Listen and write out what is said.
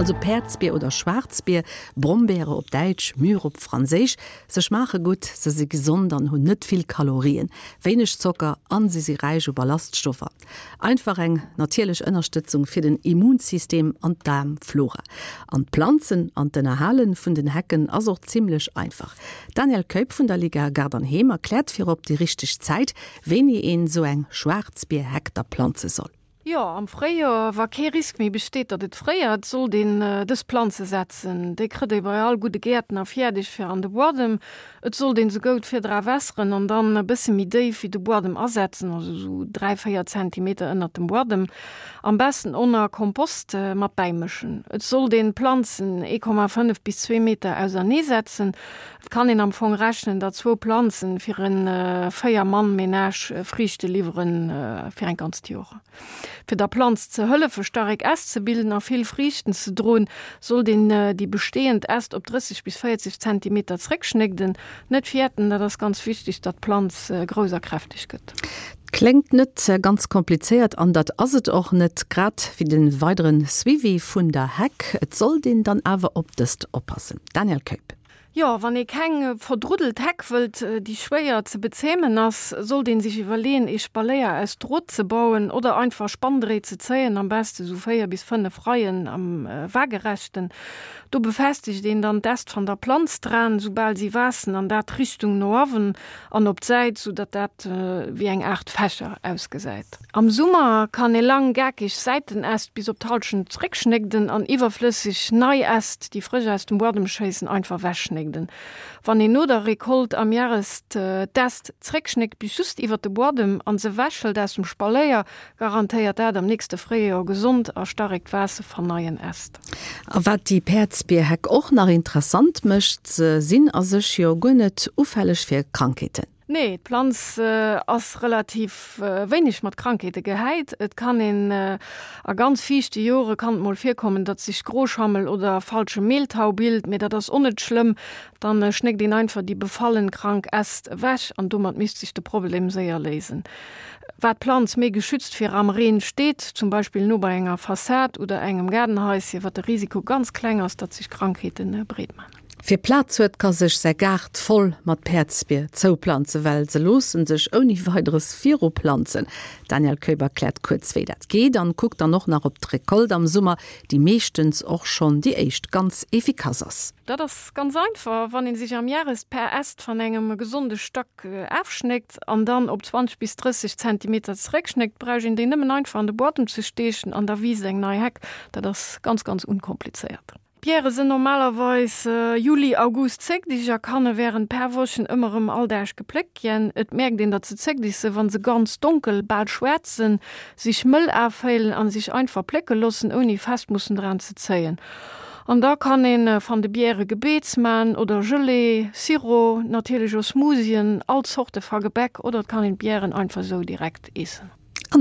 Also Päerdsbier oder Schwaarzbier, Brombeere op Däitsch, Mûre op Franséisch. Se schmaache gutt, se si gesond an hunn net vill Kalorien, wéineg Zocker an se si räich u Ballaststoffer. Einfach eng natierlech Ënnerstëtzung fir den Immunsystem an d'Daarmflora. An d'Planzen an d'Ënnerhale vun den Hecken ass och zimmlech einfach. D'Danièle Keup vun der Liga Gaart an Heem erkläert virop déi richteg Zäit, wéini een esou eng Schwaarzbierheck da planze soll. Jo, am Fréijoer, wa kee Risk méi besteet, datt et fréiert, sollt een dës Planze setzen. Déi krëtt ee bei all gudde Gäertner fiärdeg fir an de Buadem. Et sollt een se goud virdra wässeren an dann e bësse méi déif wéi de Buadem asetzen, also sou 3, 4 Zentimeter ënnert dem Buadem. Am besten onner Kompost mat bäimëschen. Et sollt een d'Planzen 1,5 bis 2 Meter ausernee setzen. Et kann een am Fong rechnen, datt zwou Planzen fir en 4 Mann Menage Friichte liwweren fir eng ganzt Joer. Fir der Planz ze hëllefe starek Äst ze bilden a vill Friichten ze droen, sollt een déi bestehend Äst op 30 bis 40 Zentimeter zréckschnégden. Net fäerten, dat ass ganz wichteg, datt d'Planz grouss a kräfteg gëtt. Kléngt net ganz komplizéiert an dat ass et och net, grad wéi de weidere Suivi vun der Heck. Et sollt een dann awer op dëst oppassen. Danièle Keup. Jo, wann ee keng verdruddelt Heck wëllt, déi schwéier ze bezämen ass, sollt een sech iwwerleeën ee Spaléier aus Drot ze bauen oder einfach Spanndréit ze zéien, am beste sou 4 bis 5 Reien am Waagerechten. Do befestegt een dann d'Äst van der Planz draan, soubal si waassen, an dat Richtung no awen an op d'Säit, sou datt dat wéi eng Aart Fächer ausgesäit. Am Summer kann ee lang gakeg Säitenäst bis op d'Halschent zréckschnégden an iwwerflësseg nei Äst, déi frësch aus dem Buadem schéissen, einfach wechschnégden. Wann een no der Récolte am Järest d'Äst zréckschnéckt bis just iwwert de Buadem an se wechhëlt aus dem Spaléier, garantéiert dat am nächste Fréijoer gesond a starekt Waasse van neien Äst. A wat déi Päerdsbierheck och nach interessant mécht, se sinn a sech jo guer net ufälleg fir Krankheeten. Nee, d'Planz ass relativ wéineg mat Krankheete gehäit. Et kann een a ganz fiichte Jore kann et mol virkommen, datt sech Groschammel oder falsche Mehltau bilt, mee dat ass och net schlëmm. Dann schnéckt een einfach déi befallen krank Äst ewech an domat misst sech de Problem séier léisen. Wat d'Planz méi geschützt viram Reen steet, zum Beispill no bei enger Fassad oder engem Gaardenhaisschen, wat de Risiko ganz kleng ass, datt sech Krankheete breet man. Wie Plaz huet, ka sech säi Gaart voll mat Päerdsbier zouplanzen, well se loosse sech ouni Weideres viruplanzen. D'Danièle Keup erkläert kuerz, wéi dat geet an kuckt dann och nach op d'Recolte am Summer, déi meeschtens och schonn déi éischt ganz efficace ass. Dat ass ganz einfach, wann een sech am Järest per Äst van engem gesonde Stack aafschnéckt an dann op 20 bis 30 Zentimeter zeréckschnéckt, brausch een déi nëmmen einfach an de Buadem ze steechen an da wiisst eng nei Heck. Dat ass ganz ganz unkomplizéiert. D'Biere sinn normalerweis Juli, August zéckdeg a kanne wärend per Wochen ëmmer erëm all Dag gepléckt ginn. Et mierkt een, datt se zéckdeg sinn, wa se ganz donkel, bal schwaarz sinn, sech mëll aféilen a sech einfach plécke loossen, ouni fest mussen dran ze zéien. An da kann een van de Biere Gebeets man oder Gelee, Sirop, natierlech o Smoothien, all Zorte va Gebäck oder et kann een d'Bieren einfach sou direkt eessen.